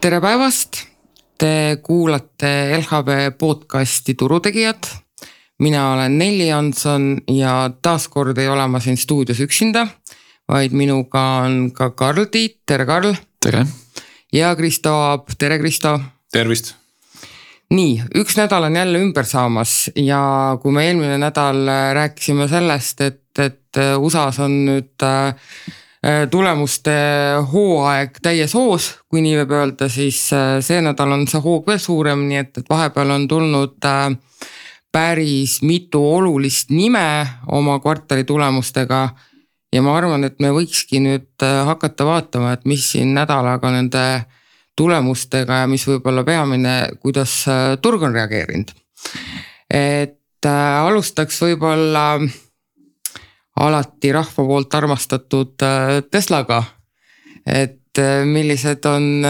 Tere päevast! Te kuulate LHV podcasti Turutegijad. Mina olen Nelli Jansson ja taaskord ei ole ma siin stuudios üksinda, vaid minuga on ka Karl Tiit. Tere Karl! Tere! Ja Kristo Aab. Tere Kristo! Tervist! Nii, üks nädal on jälle ümber saamas ja kui me eelmine nädal rääkisime sellest, et USAs on nüüd tulemuste hooaeg täies hoos, kui nii võib öelda, siis see nädal on see hoog veel suurem, nii et vahepeal on tulnud päris mitu olulist nime oma kvartali tulemustega ja ma arvan, et me võikski nüüd hakata vaatama, et mis siin nädalaga nende tulemustega ja mis võib-olla peamine, kuidas turg on reageerinud. Et alustaks võib-olla alati rahva poolt armastatud Teslaga. Et millised on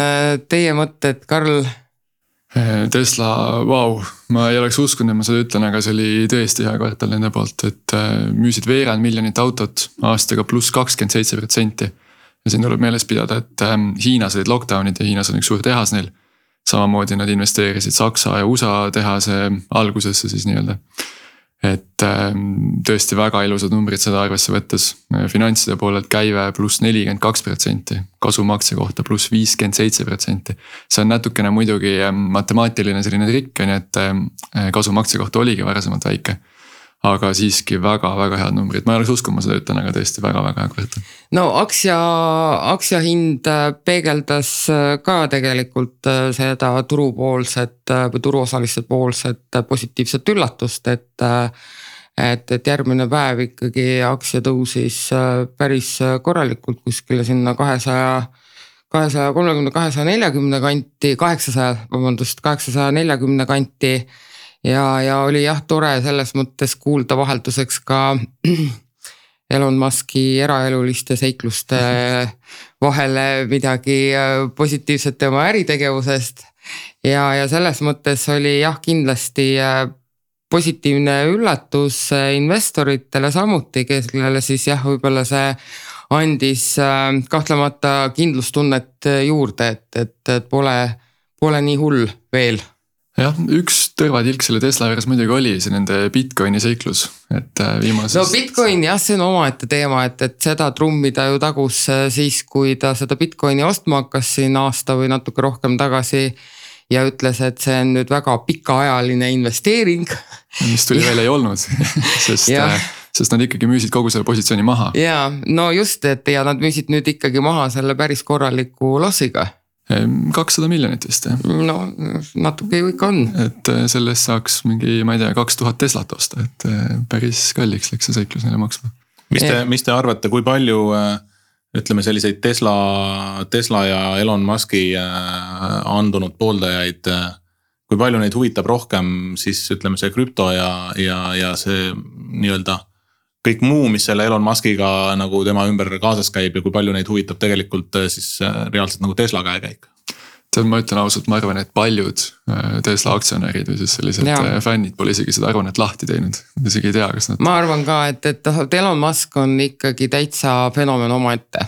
teie mõtted, Karl? Tesla, vau, ma ei oleks uskunud, ma seda ütlen, aga see oli tõesti hea kvartal nende poolt, et müüsid veerand miljonit autot aastaga pluss 27%. Ja siin tuleb meeles pidada, et Hiinas olid lockdownid ja Hiinas on üks suur tehas neil. Samamoodi nad investeerisid Saksa ja USA tehase algusesse siis nii-öelda. Et tõesti väga ilusad numbrid seda arvesse võttes. Finantside poolelt käive pluss 42%, kasumakse kohta pluss 57%. See on natukene muidugi matemaatiline selline trikk, et kasumakse kohta oligi varasemalt väike. Aga siiski väga-väga head numbrid. Ma ei oleks uskunud, ma seda ütlen, aga tõesti väga-väga hea kvartal. No aktsia hind peegeldas ka tegelikult seda turupoolset või turuosaliste poolset positiivset üllatust, et järgmine päev ikkagi aktsia tõusis päris korralikult kuskile sinna 230-240 kanti, 840 kanti. Ja oli jah tore selles mõttes kuulda vahelduseks ka Elon Muski eraeluliste seikluste vahele midagi positiivset tema äritegevusest. Ja selles mõttes oli jah kindlasti positiivne üllatus investoritele samuti, kellele siis jah võib-olla see andis kahtlemata kindlustunnet juurde, et pole nii hull veel. Jah, üks tõrvatilk selle Tesla juures muidugi oli see nende Bitcoini seiklus, et viimases... No Bitcoin jah, see on omaette teema, et seda trummida ju tagus siis, kui ta seda Bitcoini ostma hakkas siin aasta või natuke rohkem tagasi ja ütles, et see on nüüd väga pikaajaline investeering. Mis tuli veel ei olnud, sest nad ikkagi müüsid kogu selle positsiooni maha. Ja, no just, et ja nad müüsid nüüd ikkagi maha selle päris korraliku lossiga. 200 miljonit vist. No natuke ju ikka on. Et sellest saaks mingi, ma ei tea, 2000 Teslat osta, et päris kalliks läks see seiklus neile maksma. Mis te arvate, kui palju ütleme selliseid Tesla ja Elon Muski andunud pooldajaid, kui palju neid huvitab rohkem siis ütleme see krüpto ja see nii-öelda kõik muu, mis selle Elon Muskiga nagu tema ümber kaasas käib ja kui palju neid huvitab tegelikult siis reaalselt nagu Tesla käekäik? Ma ütlen ausalt, ma arvan, et paljud Tesla aktsionärid või siis sellised fännid pole isegi seda arvanet lahti teinud. Isegi ei tea, kas nad... Ma arvan ka, et Elon Musk on ikkagi täitsa fenomen omaette.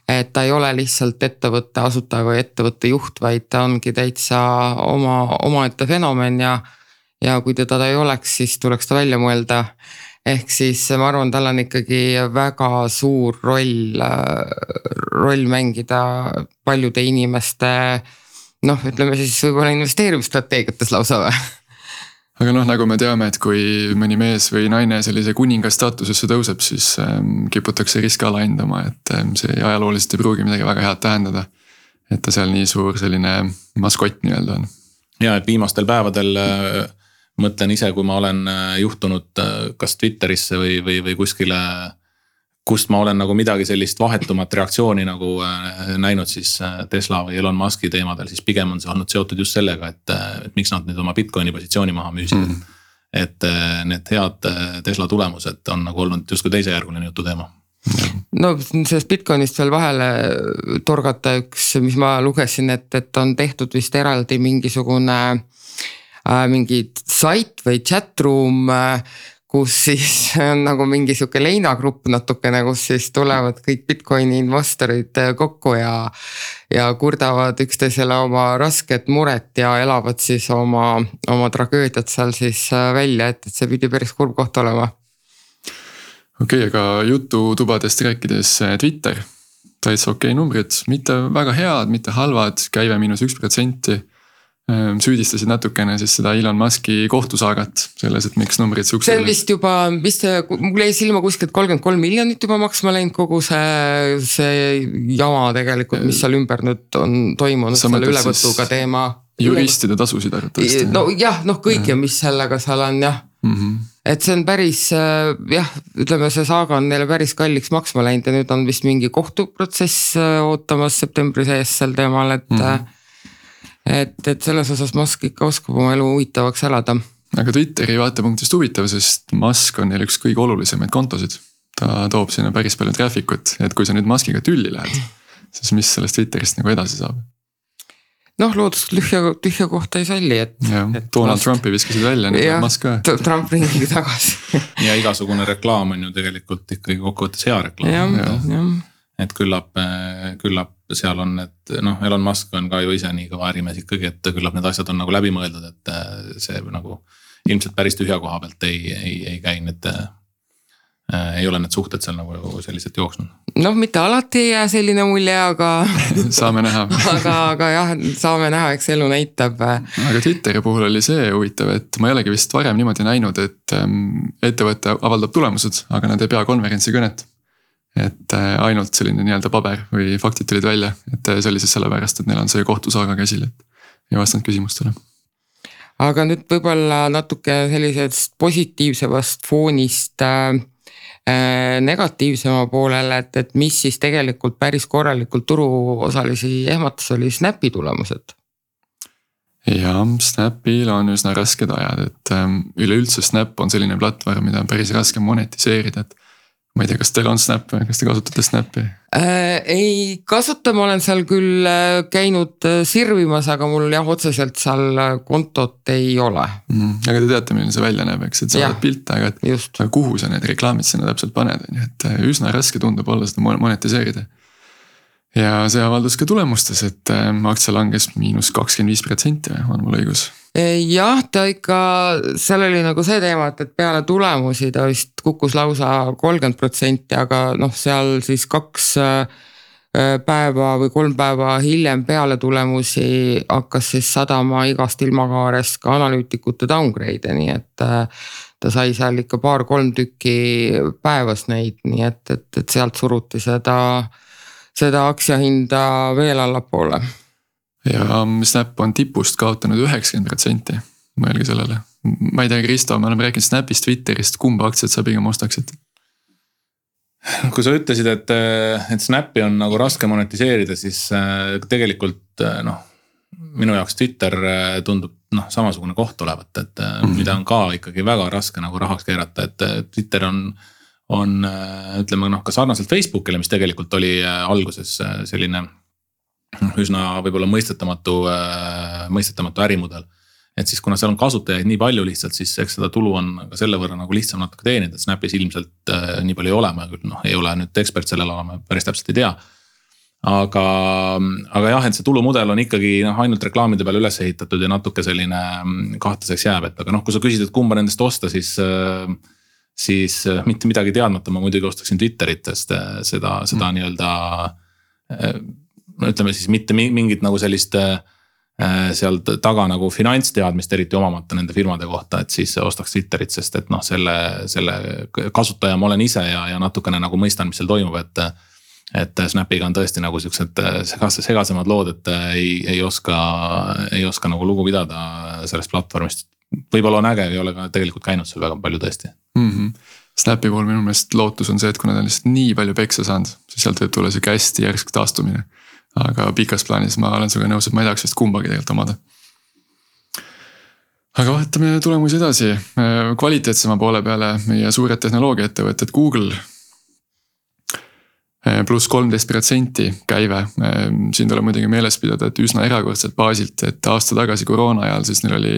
Et ta ei ole lihtsalt ettevõtte asutaja või ettevõtte juht, vaid ta ongi täitsa omaette fenomen ja kui teda ei oleks, siis tuleks ta välja mõelda. Ehk siis ma arvan, tal on ikkagi väga suur roll mängida paljude inimeste, ütleme siis võib-olla investeerimisstrateegiates lausa või? Aga nagu me teame, et kui mõni mees või naine sellise kuninga staatusesse tõuseb, siis kiputakse riske alahindama, et see ajalooliselt ei pruugi midagi väga head tähendada, et ta seal nii suur selline maskott nii-öelda on. Ja, et viimastel päevadel mõtlen ise, kui ma olen juhtunud kas Twitterisse või kuskile, kust ma olen nagu midagi sellist vahetumat reaktsiooni nagu näinud siis Tesla või Elon Muski teemadel, siis pigem on see olnud seotud just sellega, et miks nad nüüd oma Bitcoini positsiooni maha müüsid. Et need head Tesla tulemused on nagu olnud justkui teisejärguline jutu teema. No sellest Bitcoinist veel vahele torgata üks, mis ma lugesin, et on tehtud vist eraldi mingisugune mingi sait või chatroom, kus siis on nagu mingi sihuke leinagrupp natukene, kus siis tulevad kõik Bitcoini investorid kokku ja kurdavad üksteisele oma rasket muret ja elavad siis oma tragöödiat seal siis välja, et see pidi päris kurb koht olema. Okei, aga jututubadest rääkides Twitter, täitsa okei numbrid, mitte väga head, mitte halvad, käive -1%. Süüdistasid natukene siis seda Elon Muski kohtusaagat selles, et miks numbrid suksed. See on vist juba, mul jäi silma kuskilt 33 miljonit juba maksma läinud kogu see jama tegelikult, mis seal ümber nüüd on toimunud, selle ülevõtuga teema. Juristide tasusid arvatavasti. No jah, kõik ja mis sellega seal on jah. Et see on päris, ütleme see saaga on neile päris kalliks maksma läinud ja nüüd on vist mingi kohtuprotsess ootamas septembri sees sel teemal, et selles osas Musk ikka oskab oma elu huvitavaks elada. Aga Twitteri vaatepunktist huvitav, sest Musk on neil üks kõige olulisemaid kontosid. Ta toob sinna päris palju traffic'ut, et kui sa nüüd Muskiga tülli lähed, siis mis sellest Twitterist nagu edasi saab? Loodus tühja kohta ei salli, et Donald Trumpi viskasid välja, nüüd Musk ka. Trump ringigi tagasi. Ja igasugune reklaam on ju tegelikult ikkagi kokkuvõttes hea reklaam. Et küllap seal on, et Elon Musk on ka ju ise nii kõva ärimees ikkagi, et küllap need asjad on nagu läbi mõeldud, et see nagu ilmselt päris tühja koha pealt ei käi, et ei ole need suhted seal nagu sellised jooksnud. Mitte alati ei jää selline mulje, aga saame näha. aga jah, saame näha, eks elu näitab. Aga Twitteri puhul oli see huvitav, et ma ei olegi vist varem niimoodi näinud, et ettevõte avaldab tulemused, aga nad ei pea konverentsi kõnet. Et ainult selline nii-öelda paber või faktid tulid välja, et see oli siis sellepärast, et neil on see kohtusaaga käsil, et ei vastanud küsimustele. Aga nüüd võib-olla natuke sellisest positiivsevast foonist negatiivsema poolele, et mis siis tegelikult päris korralikult turuosalisi ehmatas oli Snapi tulemused. Ja Snapil on üsna rasked ajad, et üleüldse Snap on selline platvorm, mida on päris raske monetiseerida, et ma ei tea, kas teil on Snap või kas te kasutate Snapi? Ei kasuta, ma olen seal küll käinud sirvimas, aga mul otseselt seal kontot ei ole. Aga te teate, milline see välja näeb, eks, et sa oled pilte, aga kuhu sa need reklaamid sinna täpselt paned, et üsna raske tundub olla seda monetiseerida. Ja see avaldus ka tulemustes, et aktsia langes -25%, on mul õigus? Jah, ta ikka, seal oli nagu see teema, et peale tulemusi ta vist kukkus lausa 30%, aga seal siis 2 päeva või 3 päeva hiljem peale tulemusi hakkas siis sadama igast ilmakaarest ka analüütikute downgrade, nii et ta sai seal ikka 2-3 tükki päevas neid, nii et sealt suruti seda aktsiahinda veel allapoole. Ja Snap on tipust kaotanud 90%, mõelge sellele. Ma ei tea, Kristo, me oleme rääkinud Snapist, Twitterist, kumba aktsiat sa pigem ostaksid? Kui sa ütlesid, et Snapi on nagu raske monetiseerida, siis tegelikult minu jaoks Twitter tundub samasugune koht olevat, et mida on ka ikkagi väga raske nagu rahaks keerata, et Twitter on ütleme ka sarnaselt Facebookile, mis tegelikult oli alguses selline üsna võib-olla mõistetamatu ärimudel. Et siis kuna seal on kasutajaid nii palju lihtsalt, siis eks seda tulu on ka selle võrra nagu lihtsam natuke teenida, et Snapis ilmselt nii palju ei ole, ma küll ei ole nüüd ekspert sellel alal, päris täpselt ei tea. Aga jah, et see tulumudel on ikkagi ainult reklaamide peale üles ehitatud ja natuke selline kahtlaseks jääb, et aga kui sa küsid, et kumba nendest osta, siis mitte midagi teadmata ma muidugi ostaksin Twitterit, sest seda nii-öelda ütleme siis mitte mingit nagu sellist seal taga nagu finantsteadmist eriti omamata nende firmade kohta, et siis ostaks Twitterit, sest et selle kasutaja ma olen ise ja natukene nagu mõistan, mis seal toimub, et Snapiga on tõesti nagu siuksed segasemad lood, et ei oska nagu lugu pidada sellest platvormist. Võib-olla on äge, ei ole ka tegelikult käinud seal väga palju tõesti. Snapi puhul minu meelest lootus on see, et kui nad on lihtsalt nii palju peksa saanud, siis sealt võib tulla siuke hästi järsk taastumine. Aga pikas plaanis ma olen sinuga nõus, et ma ei tahaks vist kumbagi tegelikult omada. Aga vaatame tulemusi edasi. Kvaliteetsema poole peale meie suured tehnoloogiaettevõtted Google pluss 13% käive. Siin tuleb muidugi meeles pidada, et üsna erakordselt baasilt, et aasta tagasi koroona ajal siis neil oli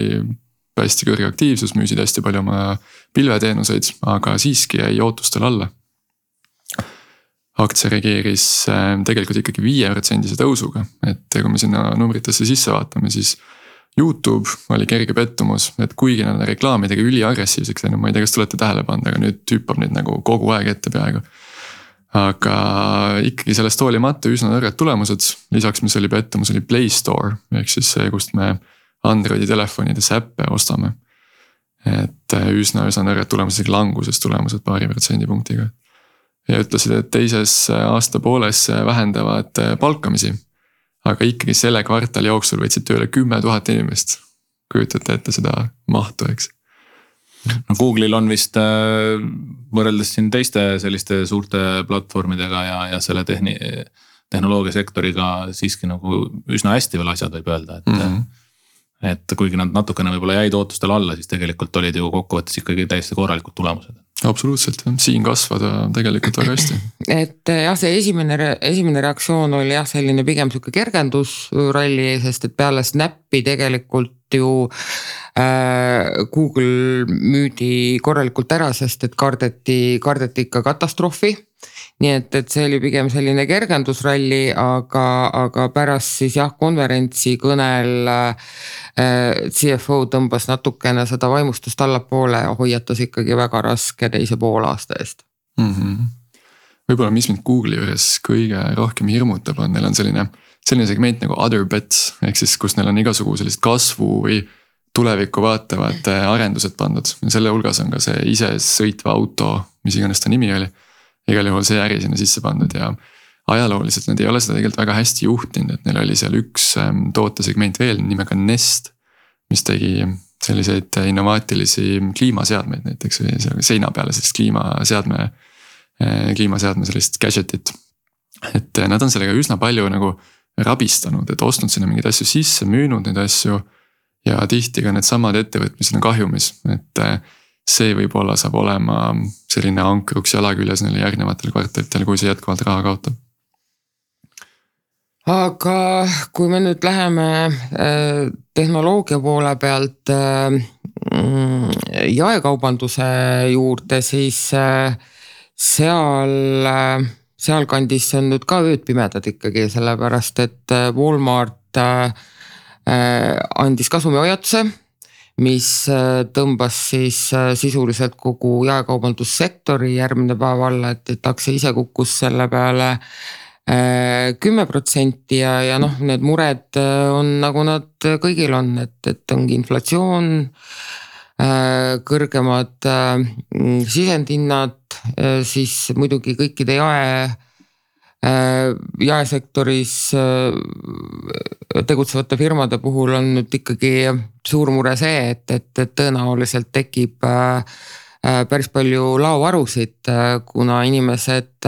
hästi kõrge aktiivsus, müüsid hästi palju oma pilveteenuseid, aga siiski jäi ootustel alla. Aktsia reageeris tegelikult ikkagi 5% tõusuga, et kui me sinna numbritesse sisse vaatame, siis YouTube oli kerge pettumus, et kuigi nad reklaamidega üliagressiivseks läinud, ma ei tea, kas te olete tähele pannud, aga nüüd hüppab neid nagu kogu aeg ette peaaegu. Aga ikkagi sellest hoolimata üsna nõrgad tulemused, lisaks mis oli pettumus, oli Play Store, ehk siis see, kust me Androidi telefonides äppe ostame. Et üsna nõrgad tulemused, languses tulemused 2%. Ja ütlesid, et teises aasta pooles vähendavad palkamisi, aga ikkagi selle kvartali jooksul võtsid tööle 10 000 inimest. Kujutate ette seda mahtu, eks. No Google'il on vist võrreldes siin teiste selliste suurte platvormidega ja selle tehnoloogia sektoriga siiski nagu üsna hästi veel asjad võib öelda, et kuigi nad natukene võib-olla jäid ootustel alla, siis tegelikult olid ju kokkuvõttes ikkagi täiesti korralikud tulemused. Absoluutselt, siin kasvada tegelikult väga hästi. Et jah, see esimene reaktsioon oli jah selline pigem siuke kergendusralli, sest et peale Snappi tegelikult ju Google müüdi korralikult ära, sest et kardeti ikka katastroofi. Nii et see oli pigem selline kergendusralli, aga pärast siis jah konverentsi kõnel CFO tõmbas natukene seda vaimustust allapoole ja hoiatas ikkagi väga raske teise poolaasta eest. Võib-olla mis mind Google'i juures kõige rohkem hirmutab on, neil on selline segment nagu other bets, ehk siis kus neil on igasugu sellist kasvu või tulevikku vaatavad arendused pandud. Ja selle hulgas on ka see ise sõitva auto, mis iganes ta nimi oli. Igal juhul see äri sinna sisse pandud ja ajalooliselt nad ei ole seda tegelikult väga hästi juhtinud, et neil oli seal üks tootesegment veel nimega Nest, mis tegi selliseid innovaatilisi kliimaseadmeid näiteks või seina peale sellist kliimaseadme sellist gadgetit. Et nad on sellega üsna palju nagu rabistanud, et ostnud sinna mingeid asju sisse, müünud neid asju ja tihti ka need samad ettevõtmised on kahjumis, et see võib-olla saab olema selline ankruks jalaküljes neile järgnevatel kvartalitel, kui see jätkuvalt raha kaotab. Aga kui me nüüd läheme tehnoloogia poole pealt jaekaubanduse juurde, siis seal kandis on nüüd ka ööd pimedad ikkagi, sellepärast et Walmart andis kasumihoiatuse, mis tõmbas siis sisuliselt kogu jaekaubandussektori järgmine päev alla, et aktsia ise kukkus selle peale 10% ja noh, need mured on nagu nad kõigil on, et ongi inflatsioon, kõrgemad sisendhinnad, siis muidugi kõikide jaesektoris tegutsevate firmade puhul on nüüd ikkagi suur mure see, et tõenäoliselt tekib päris palju laovarusid, kuna inimesed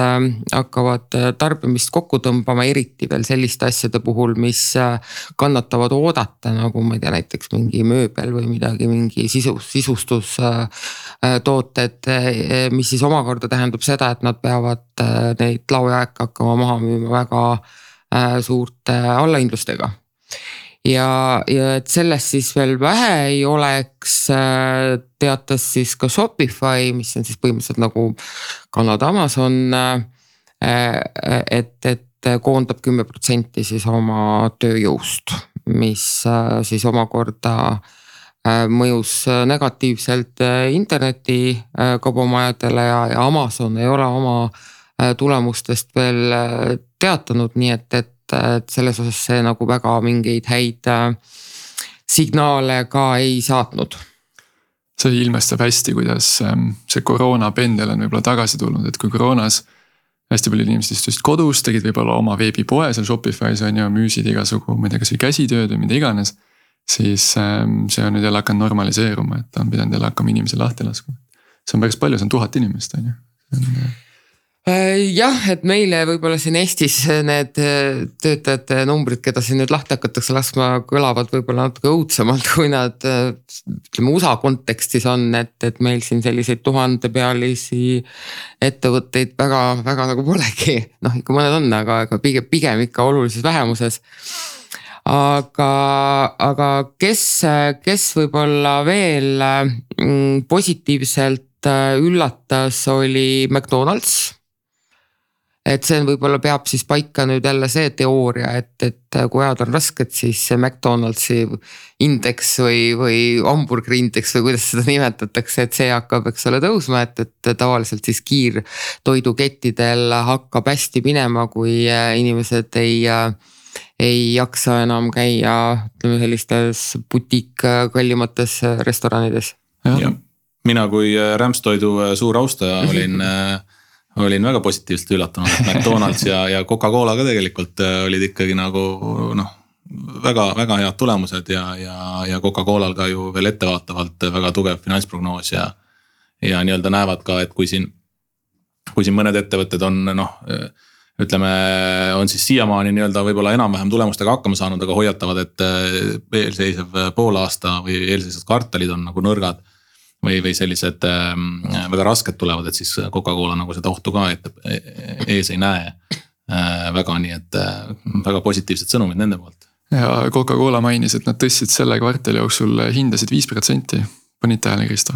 hakkavad tarbimist kokku tõmbama, eriti veel selliste asjade puhul, mis kannatavad oodata, nagu ma ei tea, näiteks mingi mööbel või midagi, mingi sisustustooted, mis siis omakorda tähendab seda, et nad peavad neid laojääke hakkama maha müüma väga suurte allahindlustega. Ja et sellest siis veel vähe ei oleks, teatas siis ka Shopify, mis on siis põhimõtteliselt nagu Kanada Amazon, et koondab 10% siis oma tööjõust, mis siis omakorda mõjus negatiivselt interneti kaubamajadele ja Amazon ei ole oma tulemustest veel teatanud, nii et selles osas see nagu väga mingeid häid signaale ka ei saatnud. See ilmestab hästi, kuidas see koroona pendel on võib-olla tagasi tulnud, et kui koroonas hästi palju inimesed istusid kodus, tegid võib-olla oma veebipoe seal Shopify's on ju, müüsid igasugu, ma ei tea, kas või käsitööd või mida iganes, siis see on nüüd jälle hakanud normaliseeruma, et on pidanud jälle hakkama inimesi lahti laskma. See on päris palju, see on 1000 inimest on ju. Jah, et meile võib-olla siin Eestis need töötajate numbrid, keda siin nüüd lahti hakatakse laskma, kõlavad võib-olla natuke õudsemalt, kui nad USA kontekstis on, et meil siin selliseid 1000-pealisi ettevõtteid väga nagu polegi. Noh, ikka mõned on, aga pigem ikka olulises vähemuses. aga kes võib-olla veel positiivselt üllatas, oli McDonald's. Et see võib-olla peab siis paika nüüd jälle see teooria, et kui ajad on rasked, siis see McDonald'si indeks või hamburgeri indeks või kuidas seda nimetatakse, et see hakkab, eks ole, tõusma, et tavaliselt siis kiirtoidukettidel hakkab hästi minema, kui inimesed ei jaksa enam käia, ütleme, sellistes butiik kallimates restoranides. Ja mina kui rämpstoidu suur austaja olin väga positiivselt üllatunud, et McDonald's ja Coca-Cola ka tegelikult olid ikkagi nagu väga, väga head tulemused ja Coca-Colal ka ju veel ettevaatavalt väga tugev finantsprognoos ja nii-öelda näevad ka, et kui siin mõned ettevõtted on ütleme, on siis siiamaani nii-öelda võib-olla enam-vähem tulemustega hakkama saanud, aga hoiatavad, et eelseisev poolaasta või eelseisvad kvartalid on nagu nõrgad või sellised väga rasked tulevad, et siis Coca-Cola nagu seda ohtu ka ees ei näe väga, nii et väga positiivsed sõnumid nende poolt. Ja Coca-Cola mainis, et nad tõstsid selle kvartali jooksul hindasid 5%. Panid tähele, Kristo?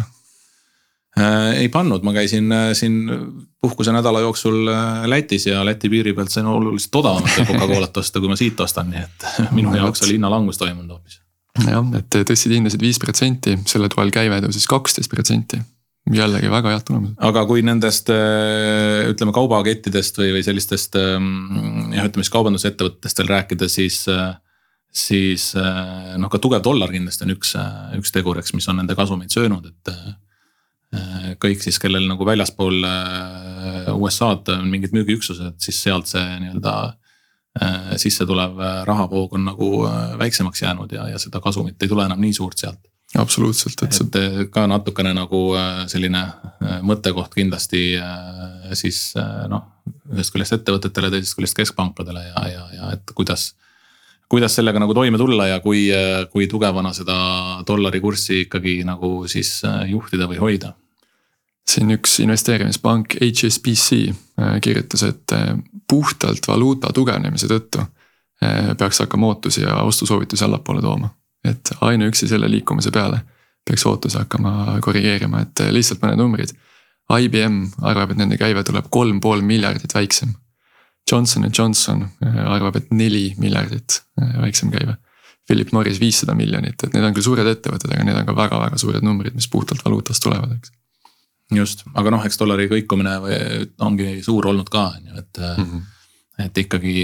Ei pannud, ma käisin siin puhkuse nädala jooksul Lätis ja Läti piiri pealt sain oluliselt odavamat Coca-Colat osta, kui ma siit ostan, nii et minu jaoks oli hinnalangus toimunud hoopis. Jah, et tõstsid hindasid 5%, selle toel käive tõusis 12%. Jällegi väga head tulemused. Aga kui nendest ütleme kaubakettidest või sellistest ütleme kaubandusettevõttest veel rääkida, siis ka tugev dollar kindlasti on üks teguriks, mis on nende kasumeid söönud, et kõik siis, kellel nagu väljaspool USA-d on mingid müügiüksused, siis sealt see nii-öelda sisse tulev rahavoog on nagu väiksemaks jäänud ja seda kasumit ei tule enam nii suurt sealt. Absoluutselt. Et ka natukene nagu selline mõttekoht kindlasti siis ühest küljest ettevõtetele, teisest küljest keskpankadele ja et kuidas sellega nagu toime tulla ja kui tugevana seda dollari kurssi ikkagi nagu siis juhtida või hoida. Siin üks investeerimispank HSBC kirjutas, et puhtalt valuuta tugevnemise tõttu peaks hakkama ootusi ja ostusoovitusi allapoole tooma. Et ainuüksi selle liikumise peale peaks ootusi hakkama korrigeerima, et lihtsalt mõned numbrid. IBM arvab, et nende käive tuleb 3,5 miljardit väiksem. Johnson & Johnson arvab, et 4 miljardit väiksem käive. Philip Morris 500 miljonit, et need on küll suured ettevõtted, aga need on ka väga-väga suured numbrid, mis puhtalt valuutast tulevad, eks. Just, aga eks dollari kõikumine ongi suur olnud ka, et ikkagi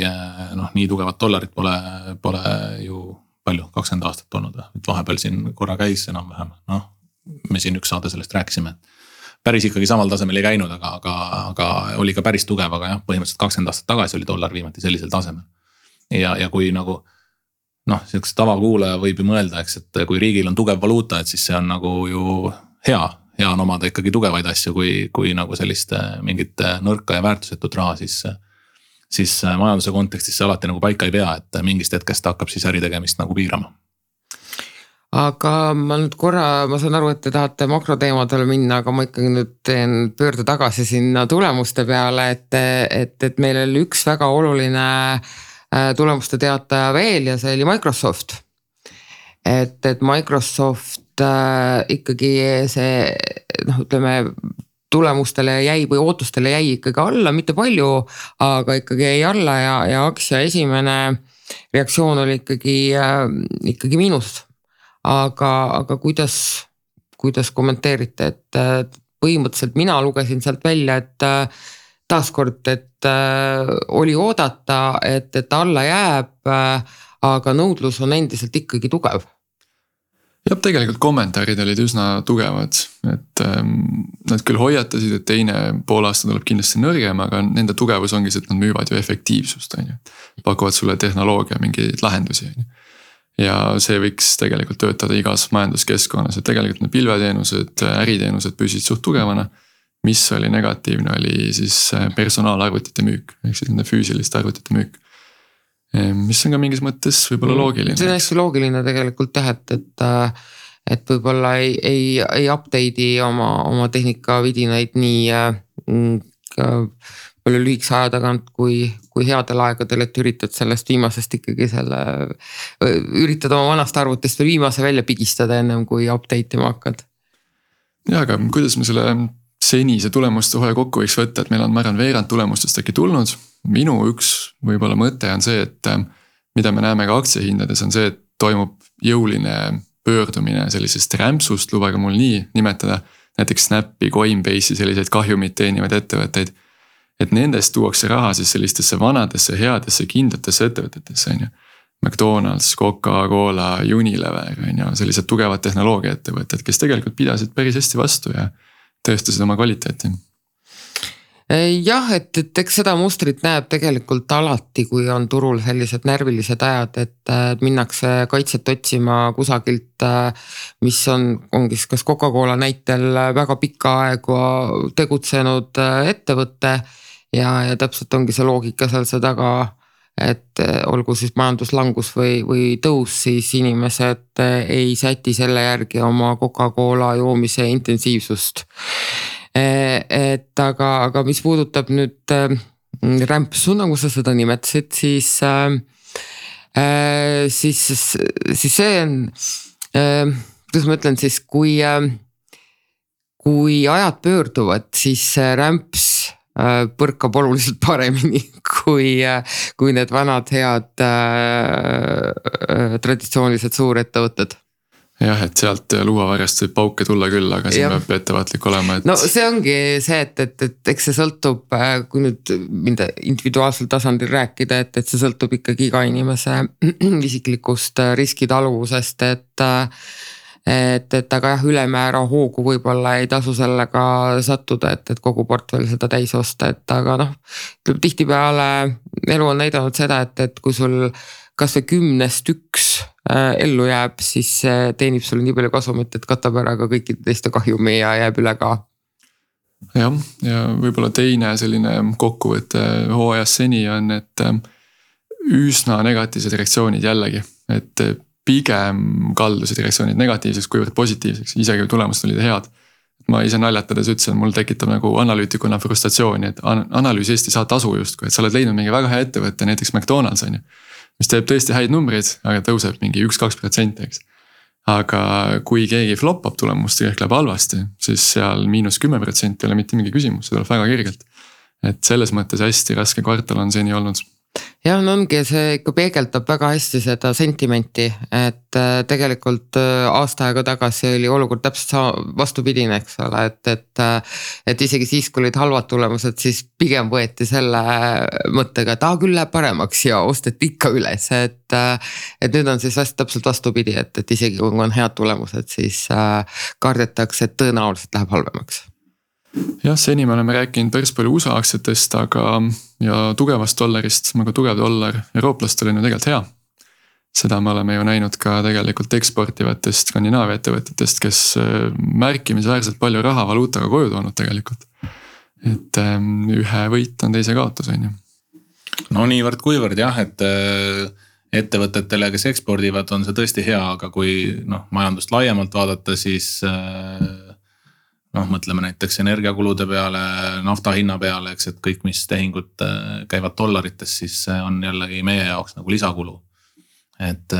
nii tugevat dollarit pole ju palju, 20 aastat olnud, et vahepeal siin korra käis enam-vähem, me siin üks saade sellest rääkisime, et päris ikkagi samal tasemel ei käinud, aga oli ka päris tugev, aga jah, põhimõtteliselt 20 aastat tagasi oli dollar viimati sellisel tasemel. Ja kui nagu, selleks tavakuulaja võib ju mõelda, eks, et kui riigil on tugev valuuta, et siis see on nagu ju hea on omada ikkagi tugevaid asju, kui nagu sellist mingit nõrka ja väärtusetut raha, siis majanduse kontekstis see alati nagu paika ei pea, et mingist hetkest hakkab siis äritegemist nagu piirama. Aga ma nüüd ma saan aru, et te tahate makroteemadele minna, aga ma ikkagi nüüd teen pöörde tagasi sinna tulemuste peale, et meil oli üks väga oluline tulemuste teataja veel ja see oli Microsoft. Et Microsoft ikkagi see, ütleme, tulemustele jäi või ootustele jäi ikkagi alla, mitte palju, aga ikkagi jäi alla ja aktsia esimene reaktsioon oli ikkagi miinus. Aga kuidas kommenteerite, et põhimõtteliselt mina lugesin sealt välja, et taaskord, et oli oodata, et alla jääb, aga nõudlus on endiselt ikkagi tugev. Ja tegelikult kommentaarid olid üsna tugevad, et nad küll hoiatasid, et teine poolaasta tuleb kindlasti nõrgem, aga nende tugevus ongi see, et nad müüvad ju efektiivsust, pakuvad sulle tehnoloogia mingeid lahendusi. Ja see võiks tegelikult töötada igas majanduskeskkonnas, et tegelikult need pilveteenused, äriteenused püsid suht tugevana. Mis oli negatiivne, oli siis personaalarvutite müük, ehk siis nende füüsiliste arvutite müük. Mis on ka mingis mõttes võibolla loogiline. See on hästi loogiline tegelikult et võibolla ei update'i oma tehnikavidinaid nii palju lühikese aja tagant kui headel aegadel, et üritad sellest viimasest ikkagi üritad oma vanast arvutist veel viimase välja pigistada ennem kui update ima hakkad. Ja, aga kuidas me selle senise tulemuste hooaja kokku võiks võtta, et meil on, ma arvan, veerand tulemustest äkki tulnud. Minu üks võib-olla mõte on see, et mida me näeme ka aktsiahindades on see, et toimub jõuline pöördumine sellisest rämpsust, lubage mul nii nimetada, näiteks Snapi, Coinbase'i selliseid kahjumit teenivaid ettevõtteid. Et nendest tuuakse raha siis sellistesse vanadesse, headesse, kindlatesse ettevõtetesse, on ju. McDonald's, Coca-Cola, Unilever, on ju, sellised tugevad tehnoloogia ettevõtted, kes tegelikult pidasid päris hästi vastu ja tõestasid oma kvaliteeti. Jah, et eks seda mustrit näeb tegelikult alati, kui on turul sellised närvilised ajad, et minnakse kaitset otsima kusagilt, mis ongi kas Coca-Cola näitel väga pikka aega tegutsenud ettevõtte ja täpselt ongi see loogika seal see taga, et olgu siis majanduslangus või tõus, siis inimesed ei säti selle järgi oma Coca-Cola joomise intensiivsust. Et aga mis puudutab nüüd rämpsu, nagu sa seda nimetasid, siis see on, kuidas ma ütlen siis, kui ajad pöörduvad, siis rämps põrkab oluliselt paremini kui need vanad head traditsioonilised suurettevõtted. Jah, et sealt luuavarjast võib pauke tulla küll, aga siin peab ettevaatlik olema. Et... No see ongi see, et eks see sõltub, kui nüüd minda individuaalsel tasandil rääkida, et see sõltub ikkagi iga inimese isiklikust riskitaluvusest, et aga jah, ülemäära hoogu võib-olla ei tasu sellega sattuda, et kogu portfell seda täis osta, et aga tihtipeale elu on näidanud seda, et kui sul kas või 10 üks ellu jääb, siis teenib sul nii palju kasumit, et katab ära ka kõikide teiste kahjumi ja jääb üle ka. Jah, ja võib-olla teine selline kokkuvõte hooajas seni on, et üsna negatiivsed reaktsioonid jällegi, et pigem kaldusid reaktsioonid negatiivseks kuivõrd positiivseks, isegi tulemused olid head. Ma ise naljatades ütlesin, mul tekitab nagu analüütikuna frustratsiooni, et analüüs Eesti saa tasu justkui, et sa oled leidnud mingi väga hea ettevõtte, näiteks McDonald's on ju, mis teeb tõesti häid numbreid, aga tõuseb mingi 1-2%, eks. Aga kui keegi floppab tulemust ja ehk läheb halvasti, siis seal -10% ei ole mitte mingi küsimus, see tuleb väga kergelt. Et selles mõttes hästi raske kvartal on seni olnud. Ja ongi, see ikka peegeldab väga hästi seda sentimenti, et tegelikult aasta aega tagasi oli olukord täpselt vastupidine, eks ole, et isegi siis, kui olid halvad tulemused, siis pigem võeti selle mõttega, et küll läheb paremaks ja osteti ikka üles, et nüüd on siis täpselt vastupidi, et isegi kui on head tulemused, siis kardetakse, et tõenäoliselt läheb halvemaks. Jah, seni me oleme rääkinud päris palju USA aktsiatest, ja tugevast dollarist, aga tugev dollar eurooplastel on ju tegelikult hea. Seda me oleme ju näinud ka tegelikult eksportivatest Skandinaavia ettevõtetest, kes märkimisväärselt palju raha valuutaga koju toonud tegelikult. Et ühe võit on teise kaotus, on ju. No niivõrd kuivõrd jah, et ettevõtetele, kes ekspordivad, on see tõesti hea, aga kui majandust laiemalt vaadata, siis mõtleme näiteks energiakulude peale, nafta hinna peale, eks, et kõik, mis tehingud käivad dollarites, siis on jällegi meie jaoks nagu lisakulu. Et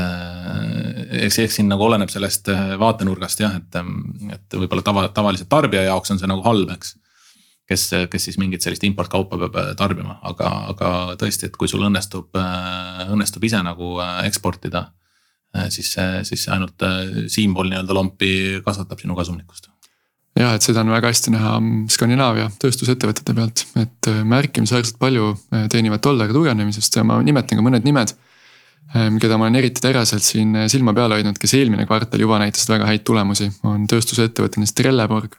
eks siin nagu oleneb sellest vaatenurgast jah, et võib-olla tavaliselt tarbija jaoks on see nagu halb, eks. Kes siis mingit sellist importkaupa peab tarbima, aga tõesti, et kui sul õnnestub ise nagu eksportida, siis ainult siinpool nii-öelda lompi kasvatab sinu kasumlikkust. Ja, et seda on väga hästi näha Skandinaavia tööstusettevõtete pealt, et märkimisväärselt palju teenivad dollari tugevnemisest ja ma nimetan ka mõned nimed, keda ma olen eriti teräselt siin silma peale hoidnud, kes eelmine kvartal juba näitasid väga häid tulemusi, on tööstusettevõtted Trelleborg,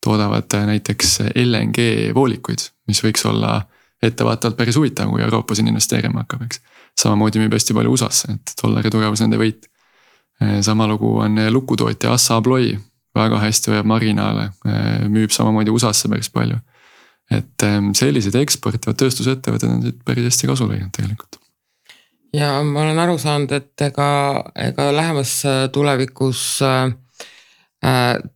toodavad näiteks LNG voolikuid, mis võiks olla ettevaatavalt päris huvitav, kui Euroopa siin investeerima hakkab, eks. Samamoodi müüb hästi palju USAsse, et dollari tugevus nende võit. Sama lugu on lukutootja Assa Abloy, väga hästi hoiab marginaale, müüb samamoodi USAsse päris palju. Et sellised eksportivad tööstusettevõtted on siit päris hästi kasu lõinud tegelikult. Ja ma olen aru saanud, et ega lähemas tulevikus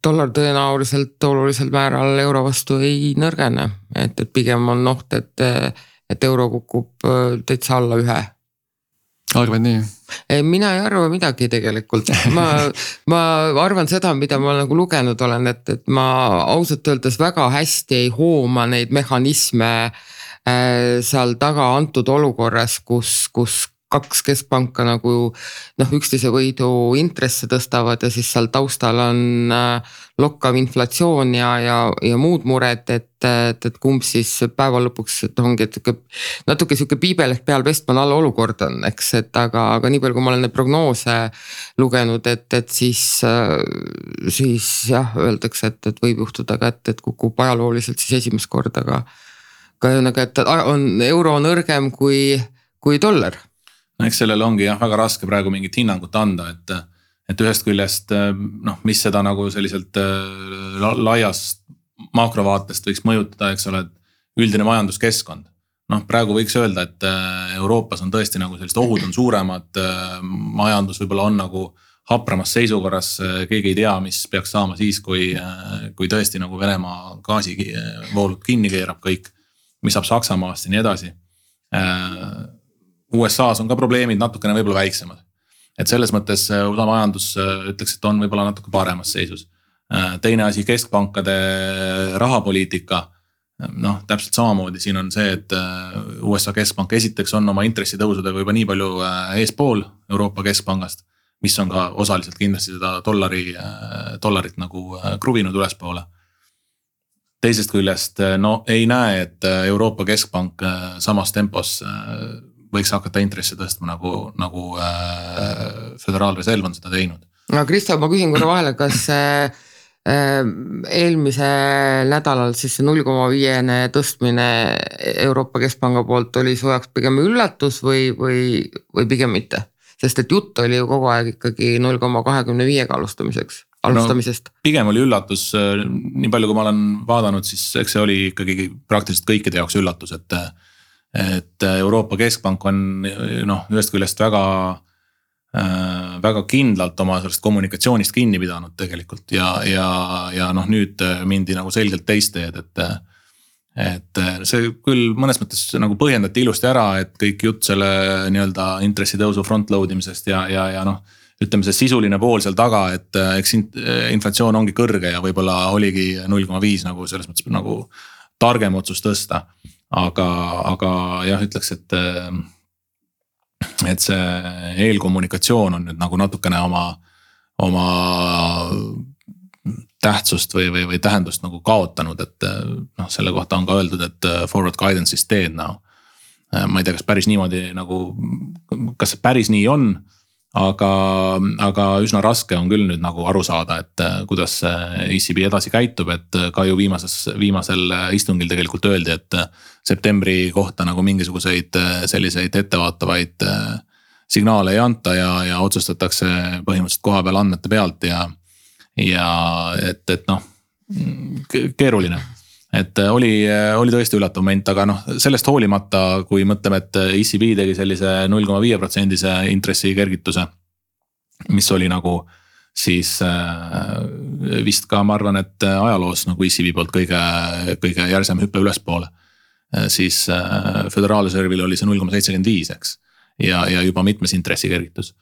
dollar tõenäoliselt olulisel määral euro vastu ei nõrgene, et pigem on oht, et euro kukub täitsa alla 1. Arvad nii? Mina ei arva midagi tegelikult. Ma arvan seda, mida ma nagu lugenud olen, et ma ausalt öeldes väga hästi ei hooma neid mehhanisme seal taga antud olukorras, kus 2 keskpanka nagu üksteise võidu intresse tõstavad ja siis seal taustal on lokkav inflatsioon ja muud mured, et kumb siis päeva lõpuks ongi, et natuke siuke piibel ehk peal vestman all olukord on, eks, et aga nii palju, kui ma olen neid prognoose lugenud, et siis jah, öeldakse, et võib juhtuda ka, et kukub ajalooliselt siis esimest korda, aga et euro nõrgem kui dollar. Eks sellele ongi jah väga raske praegu mingit hinnangut anda, et ühest küljest mis seda nagu selliselt laiast makrovaatest võiks mõjutada, eks ole, et üldine majanduskeskkond. Praegu võiks öelda, et Euroopas on tõesti nagu sellised ohud on suuremad, majandus võib-olla on nagu hapramas seisukorras, keegi ei tea, mis peaks saama siis, kui tõesti nagu Venemaa gaasivoolud kinni keerab kõik, mis saab Saksamaast ja nii edasi. USA's on ka probleemid natukene võib-olla väiksemad. Et selles mõttes USA majandus ütleks, et on võib-olla natuke paremas seisus. Teine asi, keskpankade rahapoliitika. Täpselt samamoodi siin on see, et USA keskpank esiteks on oma intressitõusudega juba nii palju eespool Euroopa keskpangast, mis on ka osaliselt kindlasti seda dollarit nagu kruvinud ülespoole. Teisest küljest ei näe, et Euroopa keskpank samas tempos võiks hakata intresse tõstma nagu Föderaalreserv on seda teinud. Kristo, ma küsin korra vahele, kas eelmisel nädalal siis 0,5 tõstmine Euroopa Keskpanga poolt oli su jaoks pigem üllatus või pigem mitte? Sest et jutt oli ju kogu aeg ikkagi 0,25 alustamisest. Pigem oli üllatus, nii palju kui ma olen vaadanud, siis eks see oli ikkagi praktiliselt kõikide jaoks üllatus, et Euroopa Keskpank on ühest küljest väga kindlalt oma sellest kommunikatsioonist kinni pidanud tegelikult ja nüüd mindi nagu selgelt teist teed, et see küll mõnes mõttes nagu põhjendati ilusti ära, et kõik jutt selle nii-öelda intressitõusu frontload imisest ja ütleme see sisuline pool seal taga, et eks inflatsioon ongi kõrge ja võib-olla oligi 0,5 nagu selles mõttes nagu targem otsus tõsta. Aga jah, ütleks, et see eelkommunikatsioon on nüüd nagu natukene oma tähtsust või tähendust nagu kaotanud, et selle kohta on ka öeldud, et forward guidance is dead now. Ma ei tea, kas päris niimoodi nagu, kas see päris nii on, aga üsna raske on küll nüüd nagu aru saada, et kuidas ECB edasi käitub, et ka ju viimasel istungil tegelikult öeldi, et septembri kohta nagu mingisuguseid selliseid ettevaatavaid signaale ei anta ja otsustatakse põhimõtteliselt koha peal andmete pealt ja et keeruline. Et oli tõesti üllatav moment, aga sellest hoolimata, kui mõtleme, et ECB tegi sellise 0,5% intressi kergituse, mis oli nagu siis vist ka ma arvan, et ajaloos nagu ECB poolt kõige järsem hüppe ülespoole, siis Föderaalreservil oli see 0,75, eks, ja juba mitmes intressi kergitus.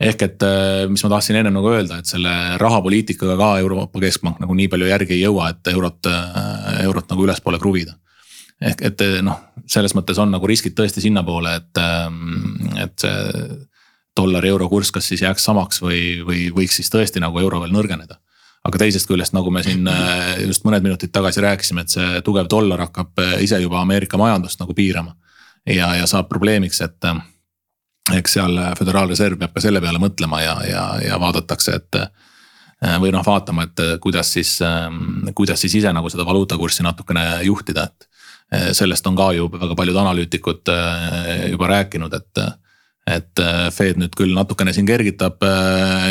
Ehk et mis ma tahtsin enne nagu öelda, et selle rahapoliitikaga ka Euroopa Keskpank nagu nii palju järgi ei jõua, et eurot nagu ülespoole kruvida. Ehk et selles mõttes on nagu riskid tõesti sinna poole, et see dollari euro kurss kas siis jääks samaks või võiks siis tõesti nagu euro veel nõrgeneda. Aga teisest küljest, nagu me siin just mõned minutid tagasi rääkisime, et see tugev dollar hakkab ise juba Ameerika majandust nagu piirama ja saab probleemiks, et eks seal Föderaalreserv peab ka selle peale mõtlema ja vaadatakse, et või vaatama, et kuidas siis ise nagu seda valuutakurssi natukene juhtida, et sellest on ka ju väga paljud analüütikud juba rääkinud, et Fed nüüd küll natukene siin kergitab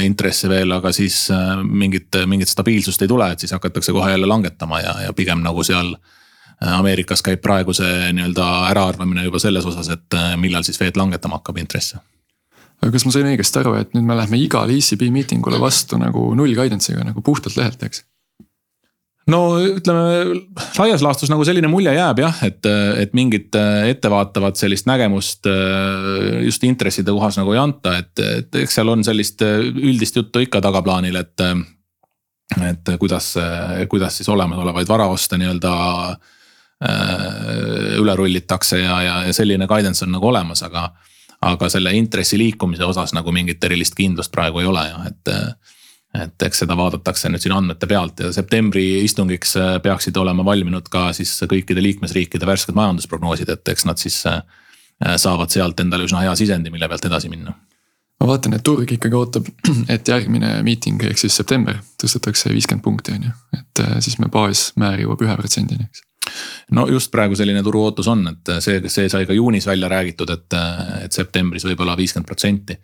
intresse veel, aga siis mingit stabiilsust ei tule, et siis hakatakse kohe jälle langetama ja pigem nagu seal Ameerikas käib praegu see nii-öelda äraarvamine juba selles osas, et millal siis Fed langetama hakkab intresse. aga kas ma sain õigesti aru, et nüüd me lähme igale ECB miitingule vastu nagu null guidance'iga nagu puhtalt lehelt, eks? No ütleme, laias laastus nagu selline mulje jääb jah, et mingit ettevaatavat sellist nägemust just intresside kohas nagu ei anta, et eks seal on sellist üldist juttu ikka tagaplaanil, et kuidas siis olemasolevaid varaoste nii-öelda üle rullitakse ja selline guidance on nagu olemas, aga selle intressi liikumise osas nagu mingit erilist kindlust praegu ei ole jah, et eks seda vaadatakse nüüd siin andmete pealt ja septembri istungiks peaksid olema valminud ka siis kõikide liikmesriikide värsked majandusprognoosid, et eks nad siis saavad sealt endale üsna hea sisendi, mille pealt edasi minna. Ma vaatan, et turg ikkagi ootab, et järgmine miiting ehk siis september tõstetakse 50 punkti on ju, et siis me baasmäär jõuab 1%-ni, eks. No just praegu selline turu ootus on, et see sai ka juunis välja räägitud, et septembris võib olla 50%.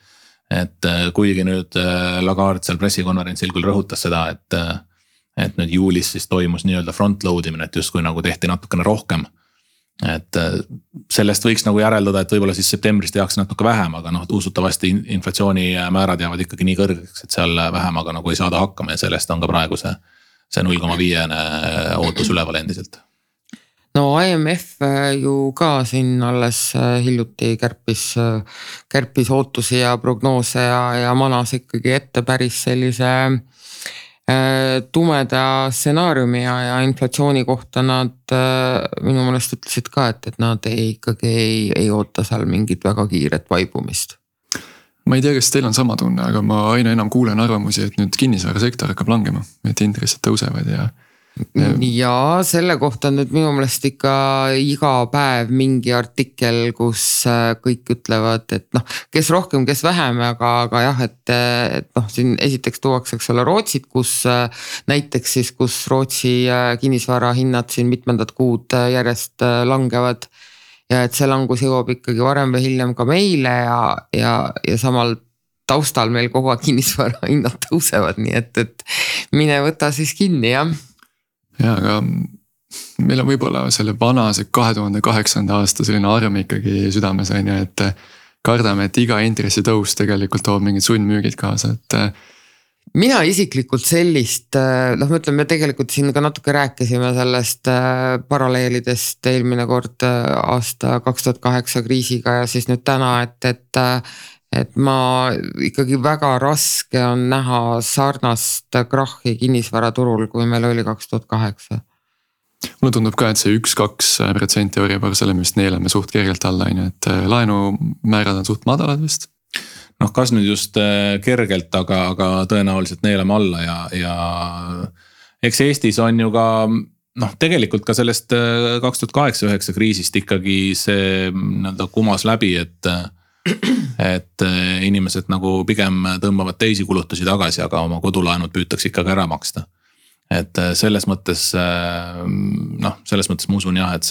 Et kuigi nüüd Lagarde seal pressikonverentsil küll rõhutas seda, et nüüd juulis siis toimus nii-öelda front-load imine, et justkui nagu tehti natukene rohkem. Et sellest võiks nagu järeldada, et võib-olla siis septembris tehakse natuke vähem, aga usutavasti inflatsiooni määrad jäävad ikkagi nii kõrgeks, et seal vähemaga nagu ei saada hakkama ja sellest on ka praegu see 0,5 ootus üleval endiselt. No IMF ju ka siin alles hiljuti kärpis ootusi ja prognoose ja manas ikkagi ette päris sellise tumeda stsenaariumi ja inflatsiooni kohta nad minu meelest ütlesid ka, et nad ikkagi ei oota seal mingit väga kiiret vaibumist. Ma ei tea, kas teil on sama tunne, aga ma aina enam kuulen arvamusi, et nüüd kinnisvarasektor hakkab langema, et intressid tõusevad ja selle kohta nüüd minu meelest ikka iga päev mingi artikkel, kus kõik ütlevad, et kes rohkem, kes vähem, aga jah, et siin esiteks tuuakse selle Rootsit, kus näiteks siis, kus Rootsi kinnisvara hinnad siin mitmendat kuud järjest langevad ja et see langus jõuab ikkagi varem või hiljem ka meile ja samal taustal meil kogu aeg kinnisvara hinnad tõusevad, nii et mine võta siis kinni, jah. Ja, aga meil on võib-olla selle vanase 2008. aasta selline arm ikkagi südames on ju, et kardame, et iga intressi tõus tegelikult toob mingid sundmüügid kaasa, et mina isiklikult sellist, me tegelikult siin ka natuke rääkisime sellest paralleelidest eelmine kord aasta 2008 kriisiga ja siis nüüd täna, et ma ikkagi väga raske on näha sarnast krahhi kinnisvaraturul, kui meil oli 2008. Mulle tundub ka, et see 1-2% Euribor, selle me vist neelame suht kergelt alla, et laenumäärad on suht madalad vist. Kas nüüd just kergelt, aga tõenäoliselt neelame alla ja eks Eestis on ju ka tegelikult ka sellest 2008-2009 kriisist ikkagi see kumas läbi, et inimesed nagu pigem tõmbavad teisi kulutusi tagasi, aga oma kodulaenud püütakse ikkagi ära maksta. Et selles mõttes ma usun jah, et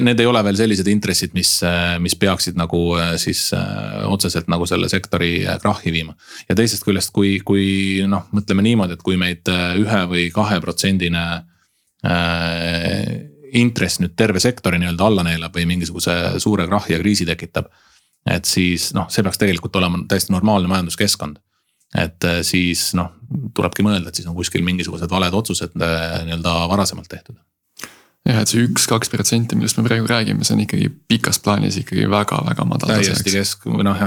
need ei ole veel sellised intressid, mis peaksid nagu siis otseselt nagu selle sektori krahhi viima. Ja teisest küljest, kui mõtleme niimoodi, et kui meid 1 või 2% intress nüüd terve sektori nii-öelda alla neelab või mingisuguse suure krahhi ja kriisi tekitab, et siis see peaks tegelikult olema täiesti normaalne majanduskeskkond. Et siis tulebki mõelda, et siis on kuskil mingisugused valed otsused nii-öelda varasemalt tehtud. Ja et see 1-2%, millest me praegu räägime, see on ikkagi pikas plaanis ikkagi väga-väga madal. Täiesti see